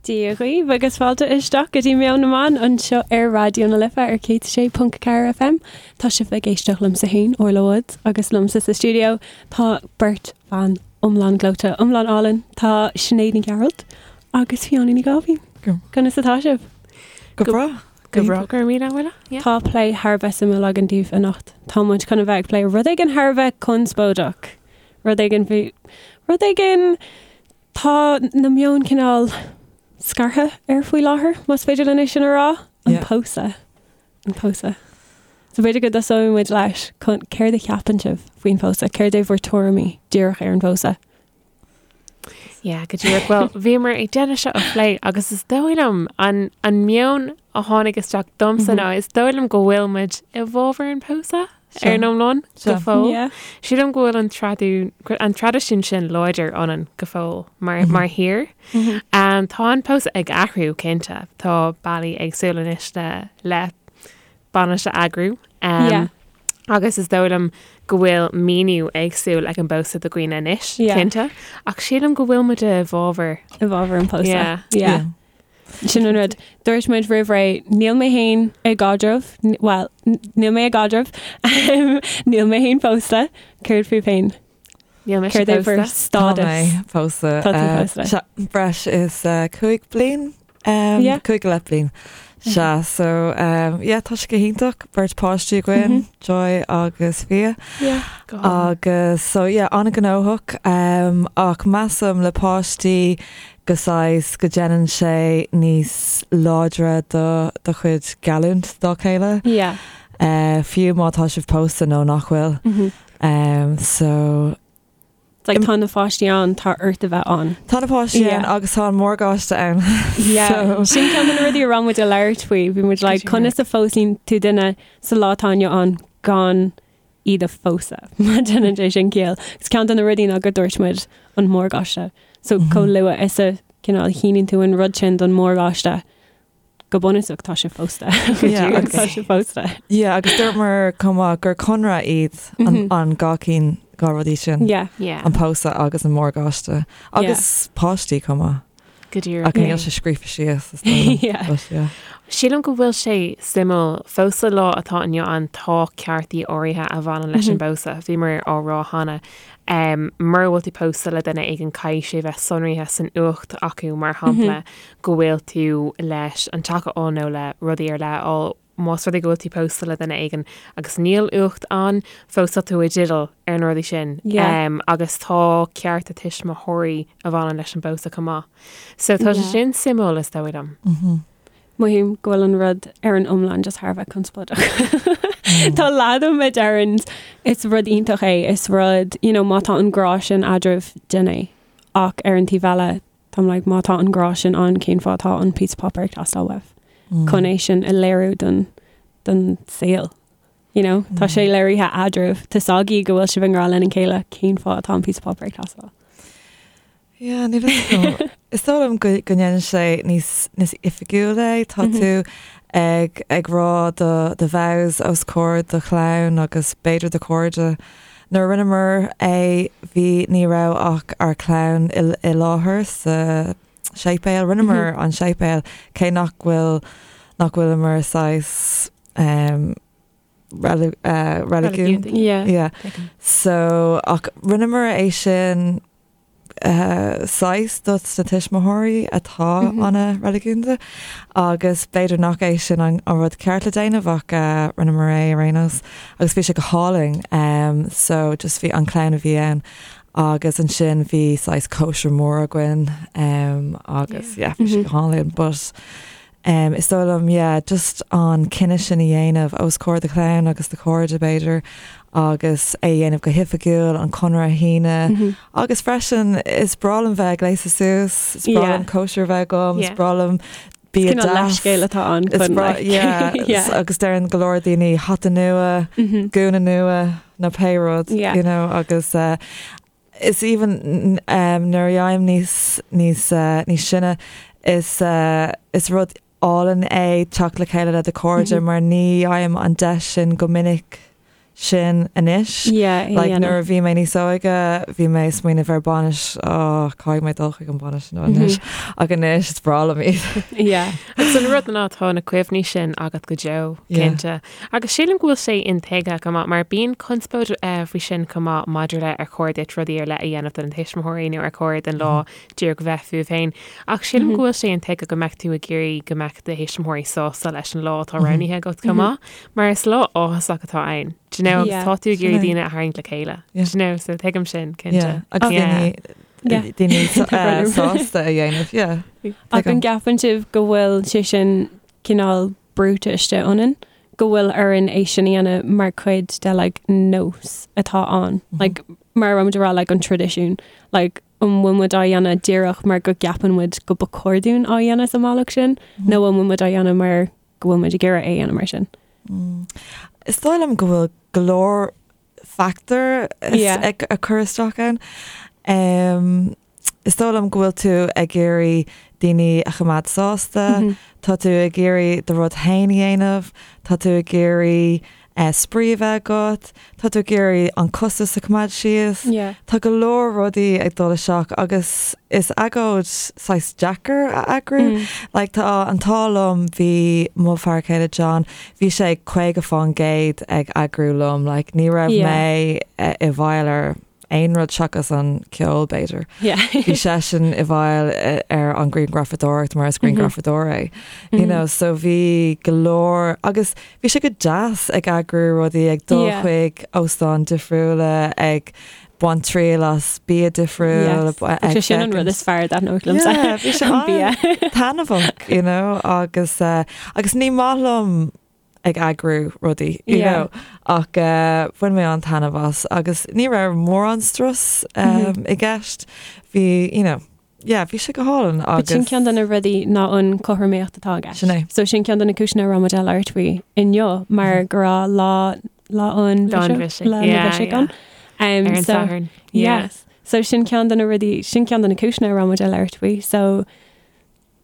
Dia dhaoibh agus fáilte isteach go dtí Meon na mBan anseo ar Raidió na Life ar 106.4 FM. Tá sibh ag éisteacht liomsa féin, Orla Woods, agus liomsa sa stiúideo tá beirt bhan iomlán gleoite, iomlán álainn. Tá Sinéad Ní Ghearailt agus Fiona Ní Gáibhín. Conas atá sibh? Go breá. Go breá, go raibh míle Orla. Yeah. Tá plé thar a bheith suimiúil againn daoibh anocht. Tá muid chun a bheith ag plé rud éigin thar a bheith conspóideach. Rud éigin faoi rud éigin Tá na meoin cineál scartha air faoi láthair, más féidir linn é sin a rá. An Yeah. pósadh. An pósadh. So b'fhéidir go dtosóidh muid leis chun céard a cheapann sibh faoin phósadh? Céard é bhur tuairimí díreach ar an phósadh? Yeah, go díreach. Well, bhíomar ag déanamh seo a phlé agus is dóigh liom an, an meon a tháinig isteach domsa ná is dóigh liom go bhfuil muid i bhfabhar an pósadh. Ar an iomlán, go fóill. Sílim go bhfuil an traidisiún an traidisiún sin láidir ionainn go fóill mar mar thír. Tá an pósadh ag athrú cinnte. Tá bealaí éagsúla anois le le bainis a eagrú. Agus is dóigh liom go bhfuil míniú éagsúil ag an bpósadh do dhaoine anois, cinnte. Ach sílim go bhfuil muid i bhfabhar. I bhfabhar an pósadh. Yeah. Sin an rud. Dúirt muid roimh ré, níl mé féin i gcaidreamh, bhuel, níl mé i gcaidreamh, níl mé féin pósta. Céard fúibh féin? Níl mise Céard é bhur pósta. stádas? Tá mé pósta. Tá tú pósta. Sea, breis is 5 bliain, Yeah. 5 go leith bliain. Sea, so, yeah, tá sé go hiontach, beirt páistí againn, Joy agus Fia. Yeah, go hálainn. Agus, so yeah, an-ghnóthach, ach measaim le páistí go saghas go déanann sé níos láidre do do chuid geallúint dá chéile. Yeah. Fiú má tá sibh pósta nó nach bhfuil. So. It's like tá na pháistí ann, tá ort a bheith ann. Tá na páistí ann agus tá an morgáiste ann. Yeah. So. Sin ceann de na rudaí a raibh muid ag labhairt faoi. Bhí muid like, conas a phósann tú duine sa lá atá inniu ann gan iad a phósadh, má déanann sé sin ciall. Agus ceann de na rudaí ná go dúirt muid an morgáiste. So chomh luath is a cineál shíníonn tú an rud sin don morgáiste, go bunúsach tá sé phósta. Yeah, agus- tá sé phósta. Yeah, agus dúramar chomh maith gur conradh iad an, an dhá cinn, dhá rudaí sin. Yeah. Yeah. An pósadh agus an morgáiste. Agus páistí chomh maith. Go díreach. Ach níl sé scríofa síos is dóigh liom. Yeah. But yeah. Sílim go bhfuil sé suimiúil fós sa lá atá inniu ann tá ceartaí áirithe a bhaineann leis an bpósadh. Bhíomar á rá cheana um, mura bhfuil tú pósta le duine éigin caithfidh sé bheith sonraithe san uacht acu mar shampla go bhfuil tú leis an teach a fháil nó le rudaí ar leith a fháil Más rud é go bhfuil tú pósta le duine éigin agus níl uacht ann, fós tá tú i dteideal ar na rudaí sin. Yeah. Um, agus tá cearta tuismitheoirí a bhaineann leis an bpósadh chomh maith. So tá sé Yeah. sin suimiúil is dóigh liom. Mothaím go bhfuil an rud ar an iomlán just thar a bheith conspóideach. Tá leath díom a deireann is rud iontach é, is rud, you know, má tá an grá sin eadraibh, déan é. Ach ar an taobh eile, Táim like, má tá an grá sin ann, cén fáth atá an píosa páipéir ag teastáil uaibh? Chun é sin a léiriú don, don saol. You know? Tá sé léirithe eadraibh. Tá 's agaibh go bhfuil sibh i ngrá lena chéile, cén fáth atá an píosa páipéir ag teastáil? Yeah, níl a fhios agam. Is dóigh liom go, go ndéanann sé níos, níos oifigiúil é. Tá tú ag, ag rá do, do vows os comhair do chlann agus b'fhéidir do chairde. Nuair a rinneamar é bhí ní raibh ach ár clann i i láthair sa séipéal. Rinneamar an séipéal cé nach bhfuil nach bhfuileamar saghas ehm reili eh reiligiún. Reiligiúnda. Yeah. Yeah. So ach rinneamar é sin saghas dos na tuismitheoirí atá an-reiligiúnda agus b'fhéidir nach é sin an rud ceart le déanamh ach rinneamar é ar aon nós agus bhí sé go hálainn. So just bhí an clann a bhí ann agus ansin bhí saghas cóisir mór againn agus yeah bhí sé go hálainn but Is dóigh liom, yeah, just an cinneadh sin a dhéanamh os comhair do chlann agus do chairde, b'fhéidir, agus é a dhéanamh go hoifigiúil, an conradh a shíneadh. Agus freisin, is breá liom bheith ag gléasadh suas, is breá liom cóisir a bheith agam, is breá liom bia Cineál deas. leithscéal atá ann Is chun breá, like, yeah, yeah. agus deireann go leor daoine hata nua, gúna nua, nó pé rud, Yeah. you know, agus eh, Is even nuair a dhéanaim níos níos níos sine is is rud álainn é teacht le chéile le do chairde mar ní fhaighim an deis sin go minic. sin anois. Yeah, Like nuair a bhí mé níos óige bhí mé ag smaoineamh ar bainis oh caithfidh mé dul chuig an bainis nó anois ach anois is breá liom iad. Yeah. Agus an rud ná tá na cuimhní sin agat go deo, cinnte. Agus sílim go bhfuil sé intuigthe go maith mar bíonn conspóid faoi sin chomh maith maidir le ar chóir duit rudaí ar leith a dhéanamh do na tuismitheoirí nó ar chóir don lá díreach bheith fúibh féin. Ach sílim go bhfuil sé intuigthe go mbeadh tú ag iarraidh go mbeadh do thuismitheoirí sásta leis an lá atá roghnaithe agat chomh maith, mar is lá áthasach atá ann. Do you know, agus tá tú ag iarraidh daoine a tharraingt le chéile. Do you know, so tuigim sin, cinnte. Agus daoine daoine sásta a dhéanamh, yeah. Ach an gceapann sibh go bhfuil sé sin cineál brúite istigh ionainn, go bhfuil orainn é sin a dhéanamh mar chuid de like nós atá ann, like mar a raibh muid a rá like an traidisiún, like an bhfuil muid á dhéanamh díreach mar go gceapann muid go ba chóir dúinn á dhéanamh sa mbealach sin nó an bhfuil muid á dhéanamh mar go bhfuil muid ag iarraidh é a dhéanamh mar sin? Is dóigh liom go bhfuil go leor factor ag cur isteach ann. Is dóigh liom go bhfuil tú ag iarraidh daoine a choimeád sásta, tá tú ag iarraidh do rud féin a dhéanamh, tá tú ag iarraidh spraoi a bheith agat, tá tú ag iarraidh an costas a choimeád síos. Tá go leor rudaí ag dul isteach agus is agóid saghas deacair a eagrú. Like tá an t-ádh liom bhí mo fear céile John, bhí sé 50% ag eagrú liom, like ní raibh mé i bhfeighil ar aon rud seachas an ceol b'fhéidir. Bhí seisean i bhfeighil ar an grianghrafadóireacht mar is grianghrafadóir é. You know, so bhí go leor agus bhí sé go deas ag eagrú rudaí ag dul chuig óstáin difriúla ag baint triail as bia difriúil. Yes. Sin an rud is fearr a thaitníonn liomsa. Yeah, bhí sé an-taitneamhach, you know, agus uh, agus ní maith liom ag eagrú rudaí, you know, ach bhain mé an-taitneamh as agus ní raibh mórán strus i gceist. Bhí, you know, yeah, bhí sé go hálainn agus. Sin ceann de na rudaí ná an cothromaíocht atá i gceist. Sin é. So sin ceann de na cúiseanna a raibh muid ag labhairt faoi inniu mar go raibh lá lá an Lá an bhisigh. Lá an bhisigh ann. Ar an Satharn. Yes. So sin ceann de na rudaí, sin ceann de na cúiseanna a raibh muid ag labhairt faoi. So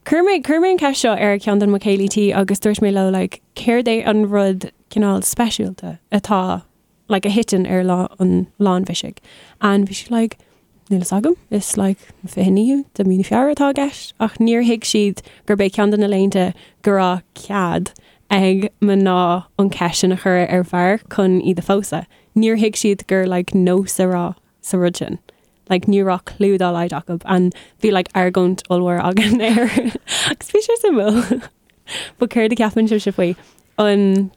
Chuir mé, chuir mé an ceist seo ar ceann de mo chéilí tí agus dúirt mé leo like céard é an rud cineál speisialta atá like a thiteann ar lá an lá an bhisigh and bhí siad like níl fhios agam is like an 29ú de mí na Feabhra atá i gceist ach níor thuig siad gurb é ceann de na laethanta go raibh cead ag mná an ceist sin a chur ar bhfear chun iad a phósadh. Níor thuig siad gur like nós a raibh sa rud sin. Like ní raibh clue dá laghad acu and bhí like argóint ollmhór againn air agus bhí sé suimiúil. But céard a ceapann sibhse faoi? An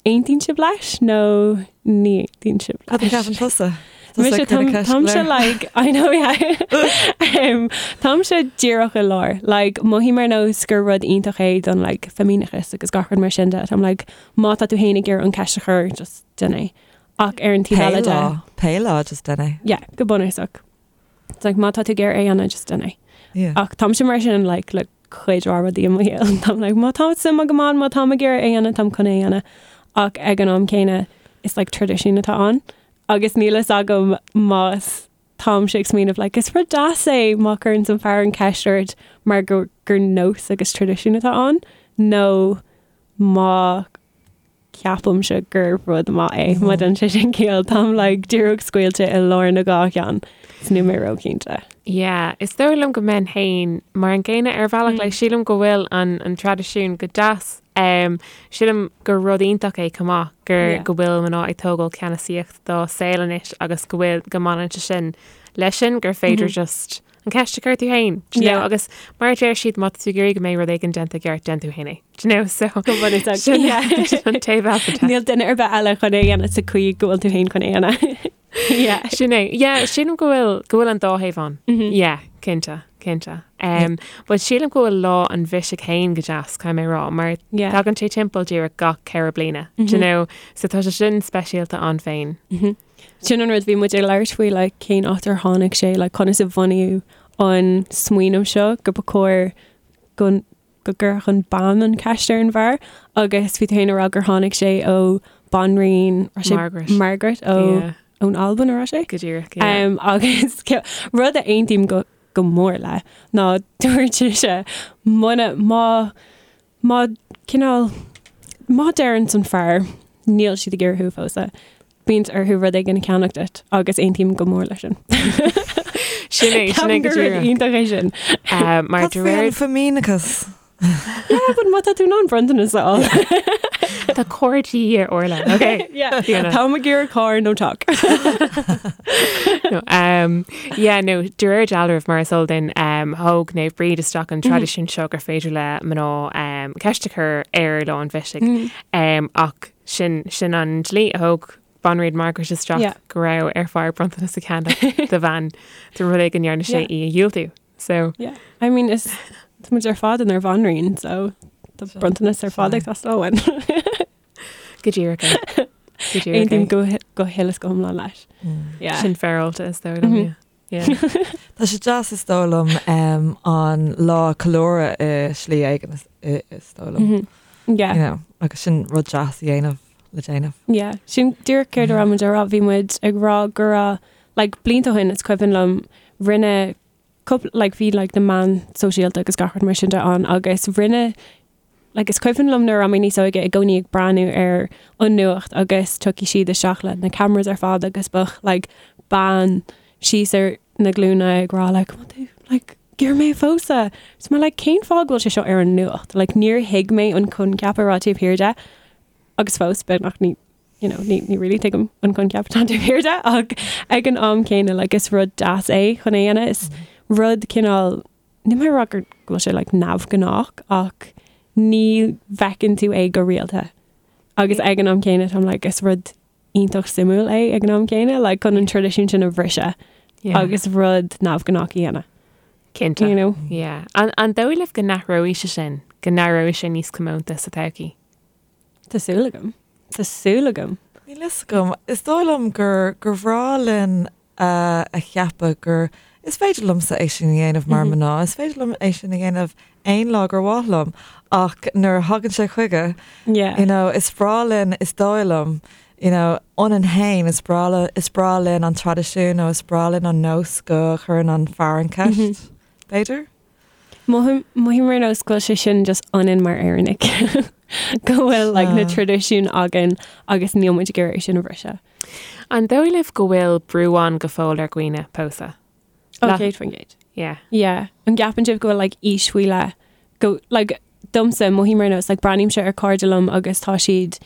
aontaíonn sibh leis nó ní aontaíonn sibh leis? Cad a cheapann tusa? Mise táimse like I know yeah um, táimse díreach i lár like mothaím ar nós gur rud iontach é don like feimineachas agus gach rud mar sin de Táim like má tá tú féin ag iarraidh an ceist a chur just déan é. Ach ar an taobh eile de. Pé lá, just déan é. Yeah, go bunúsach. It's like má tá tú ag iarraidh é a dhéanamh, just déan é. Yeah. Ach táimse mar sin like le cuid mhaith rudaí i mo shaol. Táim like má tá suim agam ann, má táim ag iarraidh é a dhéanamh, táim chun é a dhéanamh. Ach ag an am céanna, is like traidisiún atá ann. Agus níl fhios agam más táimse ag smaoineamh like is rud deas é má chuireann an fear an ceist ort mar gur, gur nós agus traidisiún atá ann, nó má ceapaimse gur rud maith é má dhéanann sé sin ciall táim like díreach scaoilte i lár na dhá cheann is níl mé róchinnte. Yeah, is dóigh liom go mbeinn féin mar an gcéanna ar bhealach like sílim go bhfuil an an traidisiún go deas um, sílim gur rud iontach é chomh maith gur Yeah. go bhfuil mná ag tógáil ceannasaíocht dá saol anois agus go bhfuil go mbaineann sé sin leis sin gur féidir just an ceist a chur tú féin, do you know, Yeah. agus mar a deir siad má tá tú ag iarraidh go mbeidh rud éigin déanta i gceart déan tú féin é, do you know, so Go bunúsach, sin yeah. sin an taobh eile de. Níl duine ar bith eile chun é a dhéanamh sa chaoi go bhfuil tú féin chun é a dhéanamh. Yeah. Sin é. Yeah, sílim go bhfuil go bhfuil an dá thaobh ann. Yeah, cinnte, cinnte. Um, but sílim go bhfuil lá an bhisigh féin go deas, caithfidh mé a rá, mar Yeah. tagann sé timpeall díreach gach 4 bliana, do you know, so tá sé sin speisialta ann féin. Sin an rud bhí muid ag labhairt faoi like cén áit ar tháinig sé like conas a bunaíodh an smaoineamh seo go ba chóir go go gcuirfeadh an bean an ceist ar an bhfear agus bhí tú féin ag rá gur tháinig sé ó banríon raibh sé Margaret. Margaret ó Yeah. ón Albain a raibh sé? Go díreach, yeah. Um, agus rud a aontaím go go mór le ná dúirt sise muna má má cineál má deireann an fear níl siad ag iarraidh thú a phósadh. Bíonn orthu rud éigin a cheannach duit agus aontaím go mór leis sin. Sin é, sin é go Ceapaim gur rud díreach. iontach é sin. Mar Cad de faoi réir an feimineachas? Yeah, but má tá tú in ann bronntanas a fháil. Tá carr de dhíth ar Orla, ok? Yeah. Fiona. Táim ag iarraidh carr nó teach. No, um, yeah, no, de réir dealraimh mar is eol duinn, um, thóg Naomh Bríd isteach an traidisiún seo gur féidir le mná um, ceist a chur ar lá an bhisigh. Um, ach sin, sin an dlí a thóg Banríon Margaret isteach Yeah. go raibh ar fear bronntanas a cheannach do bhean de rud é go ndearna sé Yeah. í a dhiúltú. So, Yeah. I mean, is tá muid ar fad inár bhanríon, so tá bronntanas ar fad ag teastáil uainn. go díreach é. Go díreach Aontaím é. go go huile is go hiomlán leis. Yeah. Sin féaráilte is dóigh liom, yeah. Yeah. Tá sé deas is dóigh liom um, an lá a cheiliúradh i slí éigin is, i- is dóigh liom. Yeah. You know, agus sin rud deas a dhéanamh le déanamh. Yeah, sin díreach céard a raibh muid a rá, bhí muid ag rá go raibh like blianta ó shin is cuimhin liom rinne cúpla like bhí like na meáin sóisialta agus gach rud mar sin de ann agus rinne like is cuimhin liom nuair a raibh mé níos óige i gcónaí ag breathnú ar an nuacht agus tiocfaidh siad isteach le na cameras ar fad agus bheadh like bean síos ar na glúine ag rá like "Come on tú like iarr mé a phósadh. Is mé like cén fáth go bhfuil sé seo ar an nuacht? Like níor thuig mé an coincheap a raibh taobh thiar de agus fós beagnach ní you know, ní, ní really tuigim an coincheap atá taobh thiar de ach ag an am céanna like is rud deas é chun é a dhéanamh is rud cineál Níl mé ag rá go bhfuil sé like neamhghnách ach ní bhfeiceann tú é go rialta. Agus ag an am céanna táim like is rud iontach suimiúil é ag an am céanna like chun an traidisiún sin a bhriseadh Yeah. agus rud neamhghnách a dhéanamh. Cinnte. You know? Yeah. An, an dóigh libh go n-athróidh sé sin, go n-éireoidh sé níos comónta sa todhchaí? Tá súil agam. Tá súil agam. Níl fhios agam. Is dóigh liom gur gur bhreá linn a a cheapadh gur is féidir liomsa é sin a dhéanamh mar mná, is féidir liom é sin a dhéanamh aon lá gur mhaith liom ach nuair a thagann sé chuige, Yeah. you know, is breá linn, is dóigh liom, you know, ionainn féin, is breá le, is breá linn an traidisiún nó is breá linn an nós go chuireann an fear an ceist, b'fhéidir? Mothaím mothaím ar nós go bhfuil sé sin just ionainn mar Éireannaigh. Go bhfuil like, na traidisiúin againn agus níl muid ag iarraidh é sin a bhriseadh. An dóigh libh go bhfuil brú ann go fóill ar dhaoine pósadh? Ó, La- 100%. Yeah. Yeah. An gceapann sibh go bhfuil like, aois faoi leith go like, domsa mothaím ar nós like, breathnaímse ar cairde liom agus tá siad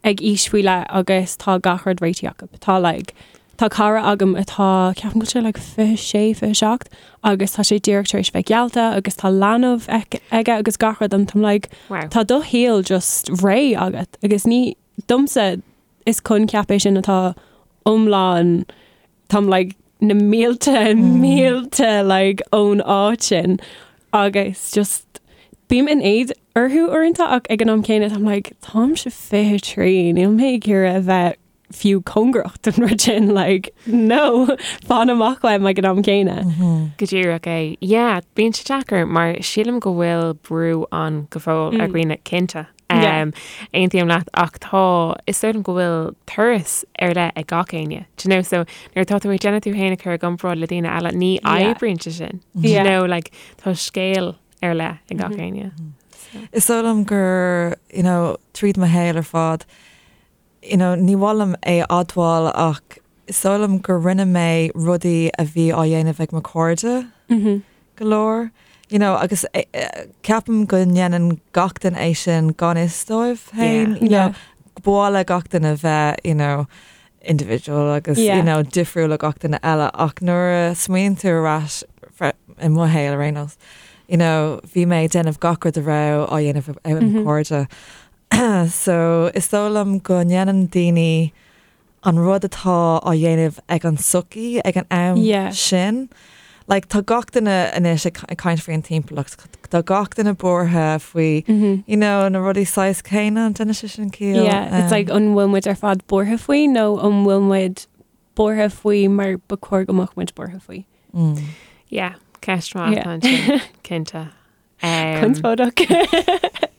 ag aois faoi leith agus tá gach rud réitithe acu. Tá like, tá cara agam atá ceapaim go bhfuil sé like 26, 27 agus tá sé díreach tar éis bheith geallta agus tá leanbh aige agus gach rud and táim like Wow. tá do shaol just réidh agat agus ní domsa is coincheap é sin atá iomlán táim like na mílte mílte like ón áit sin agus just bím in éad orthu uaireanta ach ag an am céanna táim like táimse 23 níl mé ag iarraidh a bheith fiú cóngarach don rud sin like no fan amach uaim ag an am céanna. Go díreach é. Yeah, bíonn sé deacair mar sílim go bhfuil brú ann go fóill ar dhaoine cinnte. Yeah. Um, aontaím leat ach tá is dóigh liom go bhfuil turas ar leith ag gach éinne. Do you know, so nuair atá tú ag déanamh tú féin a chur i gcomparáid le daoine eile, ní Yeah. oibríonn sé sin. Do you Yeah. know, like, tá scéal ar leith ag gach éinne. Is dóigh liom gur, you know, tríd mo shaol ar fad, you know, ní mhaith liom é a admháil ach is dóigh liom gur rinne mé rudaí a bhí á dhéanamh ag mo chairde go leor. You know, agus eh, eh, ceapaim go ndéanann gach duine é sin gan fhios dóibh féin, Yeah. you know, Yeah. ba mhaith le gach duine bheith, you know, individual agus Yeah. you know, difriúil le gach duine eile ach nuair a smaoiníonn tú ar ais i mo shaol ar aon nós, you know, bhí mé ag déanamh gach rud a raibh á dhéanamh ag mo chairde. So is dóigh liom go ndéanann daoine an rud atá á dhéanamh ag an sochaí ag an am Yeah. sin. Like, tá gach duine anois ag ag caint faoin timpeallacht, tá gach duine buartha faoi you know, na rudaí saghas céanna an ndéanann sé sin ciall. Yeah, it's like an bhfuil muid ar fad buartha faoi nó an bhfuil muid buartha faoi mar ba chóir go mbeadh muid buartha faoi. Yeah, ceist mhaith Yeah. ansin, cinnte. Um, Conspóideach.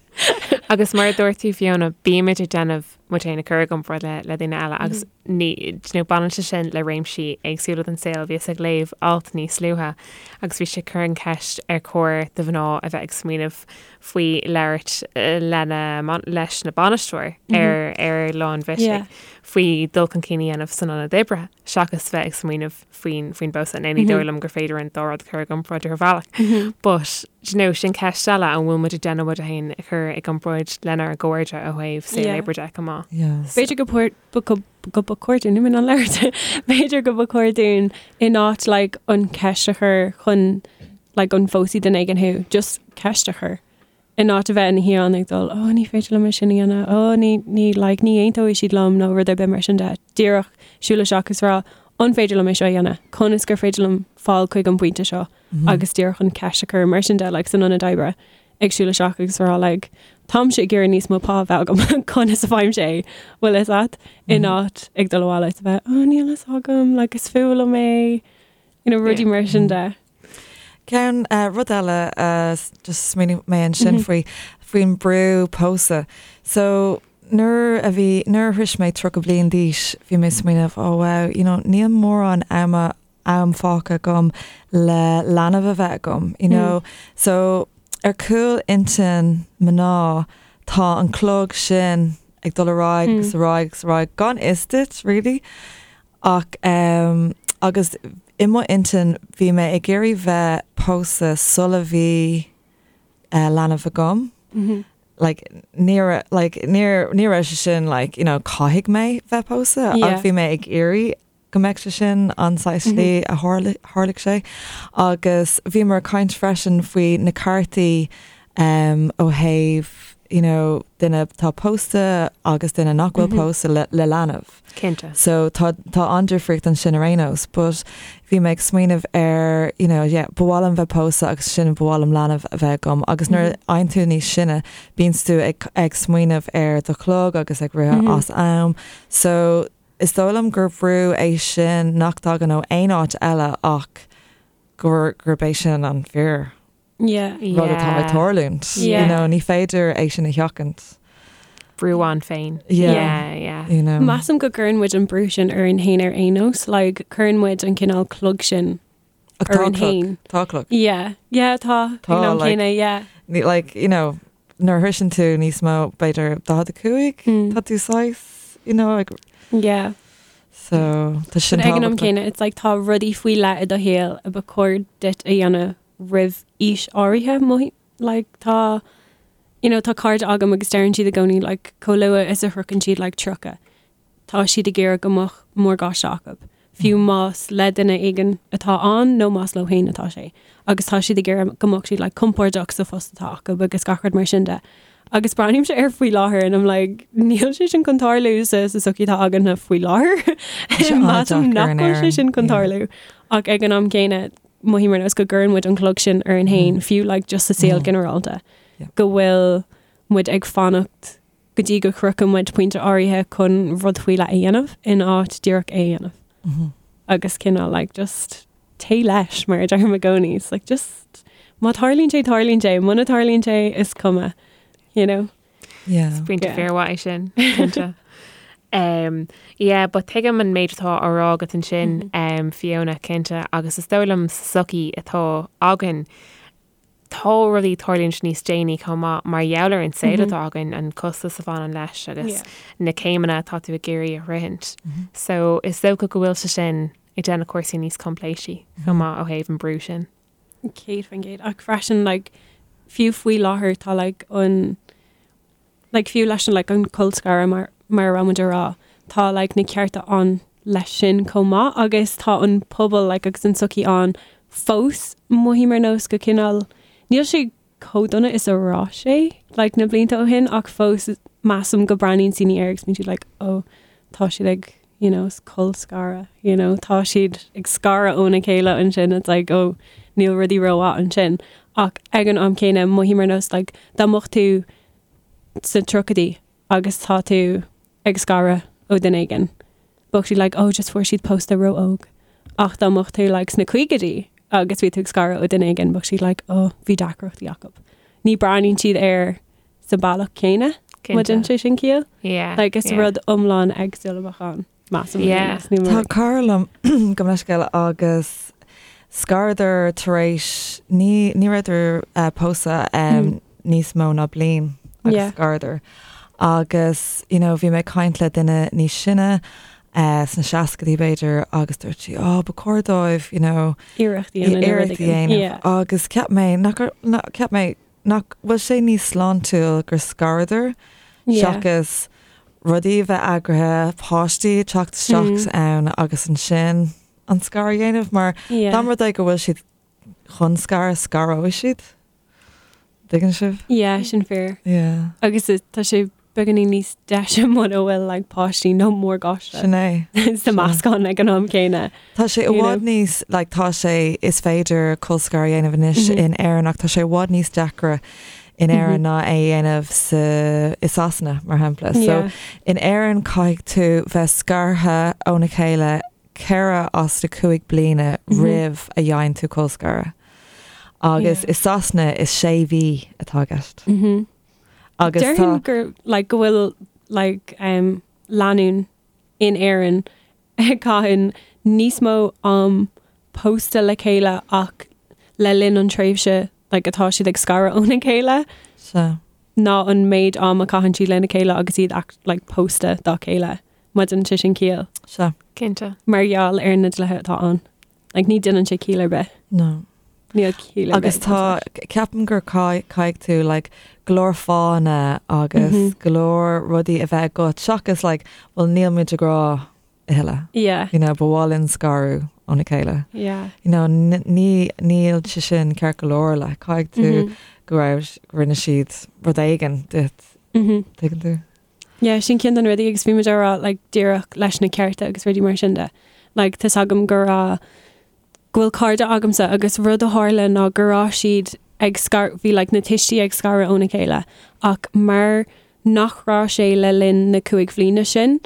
Agus mar a dúirt tú Fiona, bímid ag déanamh muid féin a chur i gcomparáid le le daoine eile agus ní you know, baineann sé sin le réimsí éagsúla den saol. Bhíos ag léamh alt níos luaithe agus bhí sé ag cur an cheist ar chóir do mhná a bheith ag smaoineamh faoi labhairt lena leis na bainisteoir ar ar lá an bhisigh faoi dul chun cinn a dhéanamh san ionad oibre seachas bheith ag smaoineamh faoin faoin bpósadh. Now ní dóigh liom gur féidir an dá rud a chur i gcomparáid ar bhealach. But do you know, sin ceist eile an bhfuil muid ag déanamh muid féin a chur i gcomparáid lenár gcairde ó thaobh saol Yeah. oibre de chomh maith. Yeah. B'fhéidir go por- go go go ba chóir dúinn in ann labhairt. B'fhéidir go ba chóir dúinn in áit like an ceist a chur chun like an bpósfaidh duine éigin thú, just ceist a chur. In áit a bheith ina shuí ann ag dul, oh ní féidir liom é sin a dhéanamh, oh ní, ní, like, ní aontóidh siad liom nó rud ar bith mar sin de. Díreach siúl isteach is rá, an féidir liom é seo a dhéanamh? Conas gur féidir liom fáil chuig an bpointe seo? Agus díreach an ceist a chur mar sin de, like, san ionad oibre, ag siúl isteach agus rá, like, táimse ag iarraidh níos mó pá a bheith agam, conas a fhaighimse é? Bhfuil fhios a't? In áit ag dul abhaile is a bheith, oh níl fhios agam, like, is fuath liom é, you know, rudaí mar sin de. Ceann rud eile just smaoinigh mé ansin faoi faoin brú pósadh. So nuair a bhí nuair a shrois mé 30 bliain d'aois bhí mé ag smaoineamh oh wow you know níl mórán ama am fágtha agam le leanbh a bheith agam you know. So ar chúl intinn mná tá an clog sin ag dul ar aghaidh agus ar aghaidh agus ar aghaidh gan fhios duit really. Ach agus i mo intinn bhí mé ag iarraidh bheith pósta sula bhí leanbh agam. Like níor like níor ní raibh sé sin like you know caithfidh mé bheith pósta ach bhí mé ag iarraidh go mbeadh sé sin an saghas slí a tharlaigh sé. Agus bhíomar ag caint freisin faoi na ceartaí ó thaobh you know duine atá pósta agus duine nach bhfuil pósta le le leanbh. Cinnte. So tá tá an-difríocht ansin ar aon nós, but bhí mé ag smaoineamh ar, you know, yeah, ba mhaith liom bheith pósta agus ansin ba mhaith liom leanbh a bheith agam agus nuair a fhaigheann tú níos sine, bíonns tú ag ag smaoineamh ar do chlog agus ag rith as am. So is dóigh liom gur brú é sin nach dtagann ó aon áit eile ach gur gurb é sin an fíor. Yeah. rud atá ag tarlúint. Yeah. You know, ní féidir é sin a sheachaint. Brú ann féin. Yeah. Yeah, yeah. You know. Measaim go gcuireann muid an brú sin orainn féin ar aon nós, like, cuireann muid an cineál clog sin Ach tá orainn clog. féin. Tá clog. Yeah. Yeah, tá. Tá, Ag an am like- céanna, yeah. Ní, like, you know, nuair a shroiseann tú níos mó, b'fhéidir 45, Mm. tá tú saghas, you know, like, Yeah. so tá sin But ag an am tábhachtach. céanna, it's like tá rudaí faoi leith i do shaol a ba chóir duit a dhéanamh roimh aois áirithe mo like tá you know tá cairde agam agus deireann siad i gcónaí like chomh luath is a shroicheann siad like 30 tá siad ag iarraidh go mbeadh morgáiste acu fiú más le duine éigin atá ann nó más leo féin atá sé agus tá siad ag iarraidh go mbeadh siad like compordach sa phost atá acu agus gach rud mar sin de. Agus breathnaímse air faoi láthair and I'm like níl sé sin chun tarlú sa sa sochaí atá againne faoi láthair. Measaim nach bhfuil sé sin chun tarlú ach ag an am céanna mothaím ar nós go gcuireann muid an clog sin orainn féin, fiú like just sa saol ginearálta, go bhfuil muid ag fanacht go dtí go shroicheann muid pointe áirithe chun rud faoi leith a dhéanamh in áit díreach é a dhéanamh. Agus cineál like just téigh leis mar a deirim i gcónaí. It's like just má tarlaíonn sé tarlaíonn sé, muna tarlaíonn sé is cuma, you know. Yeah. Is pointe Yeah. fíormhaith é sin, cinnte. Um, yeah, but tuigim an méid atá á rá agat ansin, um, Fiona, cinnte, agus is dóigh liom sa sochaí atá againn, tá rudaí ag tarlúint níos déanaí chomh maith mar gheall ar an saol atá againn, an costas a bhaineann leis agus Yeah. na céimeanna atá tú ag iarraidh a shroichint. So is dócha go bhfuil sé sin ag déanamh cúrsaí níos coimpléisí chomh maith ó thaobh an brú sin. 100% ach freisin like fiú faoi láthair tá like an like fiú leis an like an colscaradh mar mar a raibh muid a rá tá like na cearta ann leis sin chomh maith agus tá an pobal like agus an tsochaí ann fós mothaím ar nós go cineál níl sé chomh dona is a raibh sé like na blianta ó shin ach fós measaim go breathnaíonn daoine air agus bíonn siad like oh tá siad ag you know colscaradh you know tá siad ag scaradh óna chéile ansin it's like oh níl rudaí rómhaith ansin ach ag an am céanna mothaím ar nós like dá mbeadh tú sna tríochaidí agus tá tú ag scaradh ó duine éigin bheadh siad like oh just fuair siad pósta ró-óg ach dá mbeadh tú like sna caogaidí agus bhí tú ag scaradh ó duine éigin bheadh siad like oh bhí deacrachtaí acu. Ní breathnaíonn siad air sa bealach céanna. Má déanann sé sin ciall? Yeah. Like is rud iomlán éagsúil a bheadh ann, measaim. Yeah. Tá cara liom gabh mo leithscéal agus scaradar tar éis ní ní rabhadar eh, pósta um, níos mó ná bliain agus Yeah. scaradar. Agus you know, bhí mé ag caint le duine níos sine eh, sna seascadaí b'fhéidir agus dúirt sí, oh, ba chóir dóibh, you know, Iarracht a dhéanamh. iarracht a dhéanamh. Yeah. Agus ceap mé nach nach- ceap mé Nach bhfuil sé níos sláintiúil gur scaradar seachas rudaí a bheith eagraithe, páistí ag teacht isteach ann agus ansin an scaradh a dhéanamh mar dá mba rud é go bhfuil siad chun scaradh, scaróidh siad. Tuigeann sibh? Yeah, sin fíor. Yeah. Agus tá sé beagáinín níos deise muna bhfuil like páistí nó morgáiste Sin é. sa meascán ag an am céanna. Tá sé i bhfad níos, like tá sé, is féidir colscaradh a dhéanamh anois in Éirinn ach tá sé i bhfad níos deacra in Éirinn ná é a dhéanamh sa, i Sasana mar shampla. So in Éirinn caithfidh tú bheith scartha óna chéile 4 as na 5 bliana roimh a dhéanann tú colscaradh. Agus i Sasana is 6 mhí atá i gceist. Agus tá. Déarfainn gur like go bhfuil like um lánúin in Éirinn ag caitheann níos mó am pósta le chéile ach le linn an tréimhse like atá siad ag scaradh óna chéile Sea. ná an méid am a caitheann siad lena chéile agus iad act like pósta dá chéile. Má déanann sé sin ciall. Sea. Cinnte. Mar gheall ar na dlíthe atá ann. Like ní déanann sé ciall ar bith. No. Níl ciall ar Agus bith. tá, ceapaim gur caithfidh tú like go leor fáthanna agus go leor rudaí a bheith agat seachas like well níl muid i ngrá a thuilleadh. Yeah. You know, ba mhaith linn scaradh óna chéile. Yeah. You know, ní níl sé sin ceart go leor like caithfidh tú go raibh rinne siad rud éigin duit. Tuigeann tú? Yeah, sin ceann de na rudaí agus bhí muid á rá like díreach leis na cearta agus rudaí mar sin de. Like tá's agam go raibh go bhfuil cairde agamsa agus rud a tharla ná go raibh siad ag scar bhí like na tuistí ag scaradh óna chéile ach mar nach raibh sé le linn na cúig bhliana sin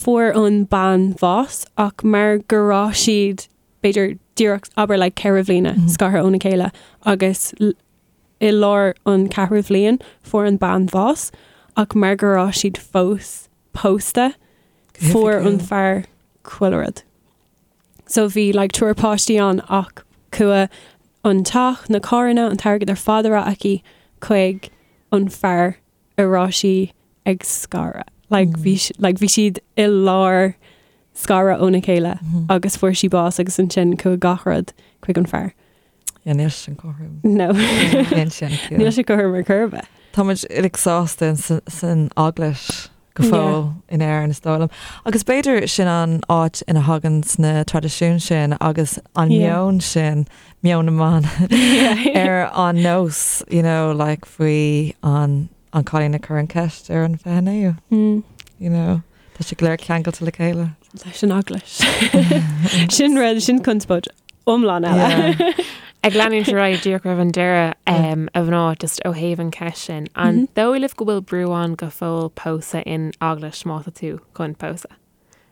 fuair an bean bás ach mar go raibh siad b'fhéidir díreach abair like 4 bhliana scartha óna chéile agus I lár an ceathrú bhliain fuair an bean bás ach mar go raibh siad fós pósta fuair an fear chuile rud. So bhí like triúr páistí ann ach chuaigh an teach, na carranna, an t-airgead ar fad a raibh aici chuig an fear a raibh sí ag scaradh. Like bhí like bhí siad i lár scaradh óna chéile agus fuair sí bás agus ansin chuaigh gach rud chuig an fear. Yeah, níl sin cothrom. No. Níl sin Níl sé cothrom ar chor ar bith. Tá muid uilig sásta san eaglais go fóill in Éirinn is dóigh liom. Agus b'fhéidir sin an áit ina thagann na traidisiúin sin agus an meon sin, meon na mban ar an nós, you know, like faoi an an cailín a chuir an ceist ar an 29ú. Mm. You know, tá sé go léir ceangailte le chéile. Leis an eaglais. Sin rud, sin conspóid iomlán eile. Ag leanúint ar aghaidh díreach roimh an deireadh a mhná just ó thaobh an cheist sin, an dóigh libh go bhfuil brú ann go fóill pósadh in eaglais má tá tú chun pósadh?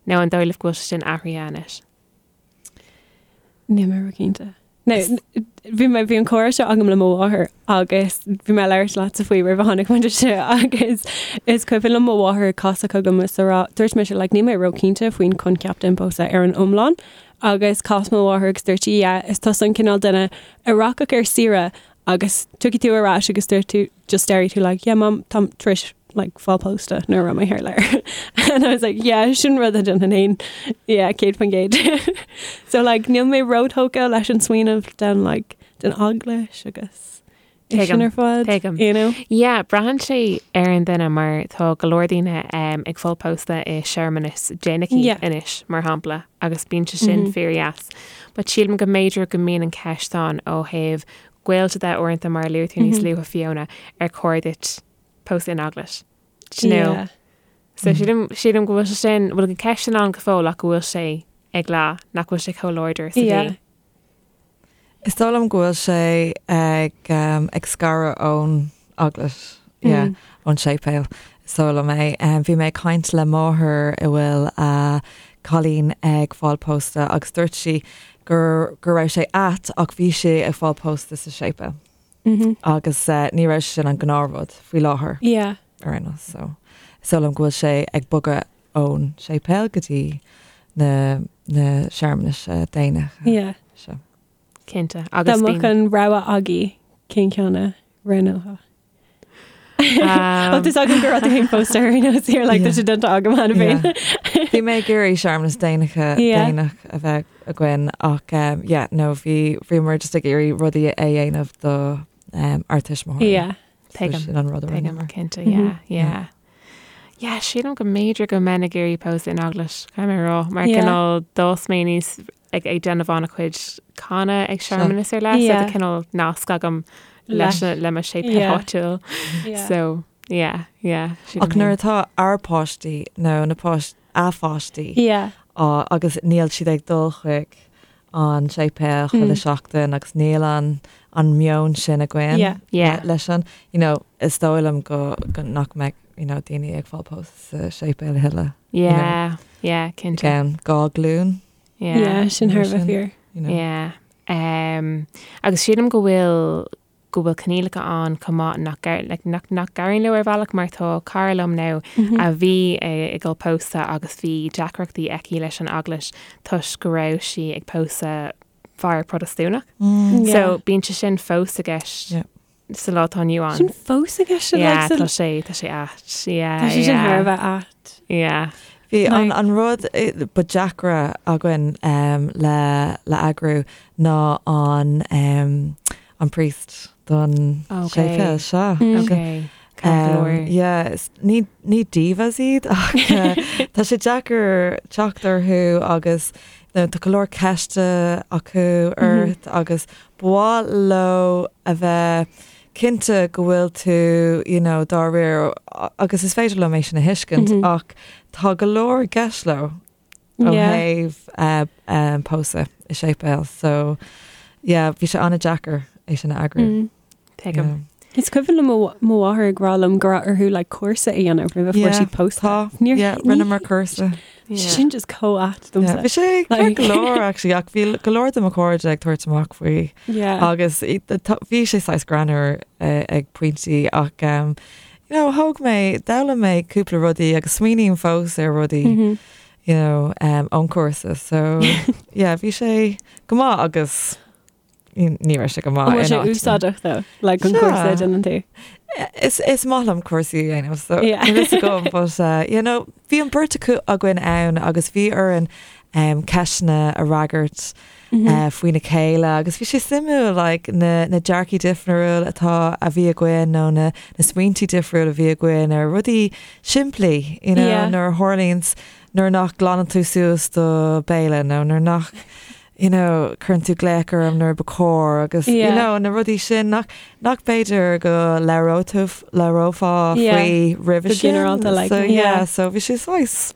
Nó an dóigh libh go bhfuil sé sin athraithe anois? Níl mé cinnte. No, bhí mé bhí an comhrá seo agam le mo mháthair agus bhí mé ag labhairt leatsa faoi roimh a tháinig muid anseo agus is cuimhin liom mo mháthair ag casadh chugam is a rá dúirt mise like níl mé róchinnte faoin coincheap den pósadh ar an iomlán agus chas mo mháthair agus dúirt sí yeah is tusa an cineál duine a rachadh ar saoire agus tiocfaidh tú ar ais agus dúirt tú just déarfaidh tú like yeah mom táim tar éis like fáil pósta nuair a raibh mé thar lear and I was like yeah sin rud a dhéanfainn féin yeah 100% so like níl mé róthógtha leis an smaoineamh den like den eaglais agus é sin ar fad Tuigim. you know Yeah, braitheann sé ar an duine mar tá go leor daoine um, ag fáil pósta i searmanas déanach Yeah. anois mar shampla agus bíonn sé sin fíordheas. But sílim go mb'fhéidir go mbíonn an ceist ann ó thaobh gaolta de uaireanta mar a luaigh tú níos luaithe Fiona ar chóir duit pósadh in eaglais. Do you know? Yeah. So sílim sílim go bhfuil sé sin bhfuil an ceist sin ann go fóill ach go bhfuil sé ag leá nach bhfuil sé chomh láidir is a Yeah. bhí. Is dóigh liom go bhfuil sé ag um, ag scaradh ón eaglais yeah, ón séipéal. Is dóigh liom é. Um, bhí mé ag caint le máthair a bhfuil a cailín ag fáil pósta agus dúirt sí gur go raibh sé ait ach bhí sé ag fáil pósta sa séipéal. Mm -hmm. Agus uh, ní raibh sin an gnáthrud faoi láthair. Yeah. ar aon nós. So is dóigh liom go bhfuil sé ag bogadh ón séipéal go dtí na na searmanais déanacha. Yeah. Seo. Cinnte. Dá Agus mbeadh bíonn an rogha agaibh cén ceann a roghnófá? Ó tá agam go raibh tú féin pósta ar aon nós here like tá sé déanta agam cheana féin. Bhí mé ag iarraidh searmanas déanacha Yeah. déanach a bheith againn ach um, yeah, no bhí bhíomar just ag iarraidh rudaí a dhéanamh do um, ár tuismitheoirí. Yeah. So Tuigim. sin an rud a Tuigim, rinneamar. cinnte, yeah, yeah. Yeah, sílim go mb'fhéidir go mbeinn ag iarraidh pósadh in eaglais, caithfidh mé a rá, mar Yeah. cineál d'fhás mé aníos ag ag déanamh an-chuid canadh ag searmanas ar leith, so Yeah. tá cineál nasc agam leis Leis. le mo séipéal Yeah. áitiúil. Yeah. So, yeah, yeah. sílim Ach nuair féin. atá ár páistí nó na páist a pháistí Yeah. á agus níl siad ag dul chuig an séipéal chuile seachtain agus níl an an meon sin againn Yeah. Yeah. leis an you know, is dóigh liom go, go nach mbeidh you know, daoine ag fáil pósta sa séipéal a thuilleadh. Yeah, yeah, cinnte. Again, gá glún, Yeah. Yeah, sin thar a bheith fíor. you know. Yeah. Um, agus sílim go bhfuil go bhfuil coinníollacha ann chomh maith nach gar- like, nach nach n-éiríonn leo ar bhealach mar tá cara liom now a bhí ag dul pósadh agus bhí deacrachtaí aici leis an eaglais toisc go raibh sí ag pósadh fear Protastúnach. Mm. So bíonn sé sin fós i gceist Yeah. sa lá atá inniu ann. Sin fós i gceist Yeah, like, tá sa- sé tá sé ait. Yeah, Tá sé sin yeah. thar a bheith ait. Yeah. Bhí an, Like- an rud eh, ba deacra againn um, le, le eagrú ná an, um, an priest don Okay. séipéal seo. Mm. Okay. Ceart go Um, leor. yeah, is- ní, ní divas iad ach eh, tá sé deacair teacht orthu agus you know, tá go leor ceiste acu ort agus ba mhaith leo a bheith cinnte go bhfuil tú you know, dáiríre agus is féidir liom é sin a thuiscint Mhm. ach tá go leor i gceist leo ó Yeah. thaobh eh, um, pósadh i séipéal so yeah, bhí sé an-deacair é sin a eagrú. Mm. Tuigim. Yeah. Is cuimhin liom mo mo mháthair ag rá liom go raibh orthu like cúrsa a dhéanamh roimh a fuair Yeah, siad pósta. Tá Níor- yeah, ní- rinneamar cúrsa. Yeah. Sin just chomh ait Yeah, domsa. Bhí sé Like- go leor actually ach bhí go leor de mo chairde ag tabhairt amach faoi Yeah. agus i- tá- bhí sé saghas greannmhar eh, ag pointí ach um, you know, thóg mé d'fhoghlaim mé cúpla rudaí agus smaoiním fós ar rudaí Mhm. you know, um, ón cúrsa so yeah, bhí sé go maith agus ní ní raibh sé go maith An bhfuil in sé áiteanna. úsáideach though, like an Sea. cúrsa a dhéanann tú. Is, is maith liom cúrsaí a dhéanamh so Yeah. níl fhios agam, but uh, you know, bhí an bheirt acu againn ann agus bhí orainn um, ceisteanna a fhreagairt Mhm. uh, faoina chéile agus bhí sé suimiúil like, na, na dearcthaí difriúil atá a bhí againn nó na, na smaointe difriúil a bhí againn ar rudaí simplí you know, Yeah. nuair a tharlaíonn nuair nach nglanann tú suas do béile nó nuair nach you know, cuireann tú glaoch orm nuair ba chóir agus you Yeah. know, na rudaí sin nach nach b'fhéidir go labhrófá labhrófá Yeah. faoi roimhe Go sin. ginearálta, like, so, yeah. yeah, so bhí sé saghas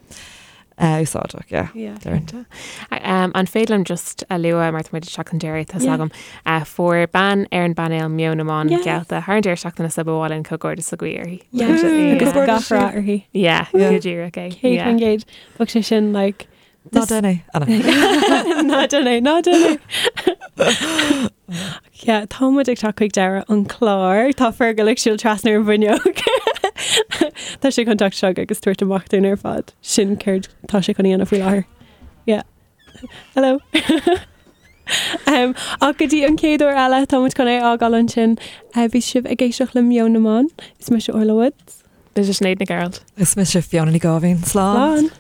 uh, úsáideach, yeah. Yeah. Déarfainn. Um, an féidir liom just a lua mar tá muid ag teacht chun deiridh tá Yeah. agam uh, fuair bean ar an bpainéal Meon na mBan Yes. geallta thar an deireadh seachtaine so ba mhaith linn comhghairdeas a ghuí uirthi. Yeah. Yeah. Agus Comhghairdeas gach rath uirthi. Yeah, Yeah. go díreach é. Céad Yeah. faoin gcéad. Bheadh sé sin like Ná this- déan é, Anna. Ná déan é, ná déan é. Yeah, tá muid ag teacht chuig deireadh an chlár, Tá Fergal ag siúl trasna ar an bhfuinneog. Tá sé chun teacht isteach agus tabhairt amach dúinn ar fad. Sin céard tá sé chun a dhéanamh faoi láthair. Yeah. Hello. um, ach go dtí an chéad uair eile tá muid chun é a fhágáil ansin uh, bhí sibh ag éisteacht le Meon na mBan, is mise Orla Woods. Mise Sinéad Nic Gearailt. Is mise Fiona Ní Gáibhín. Slán. Slán.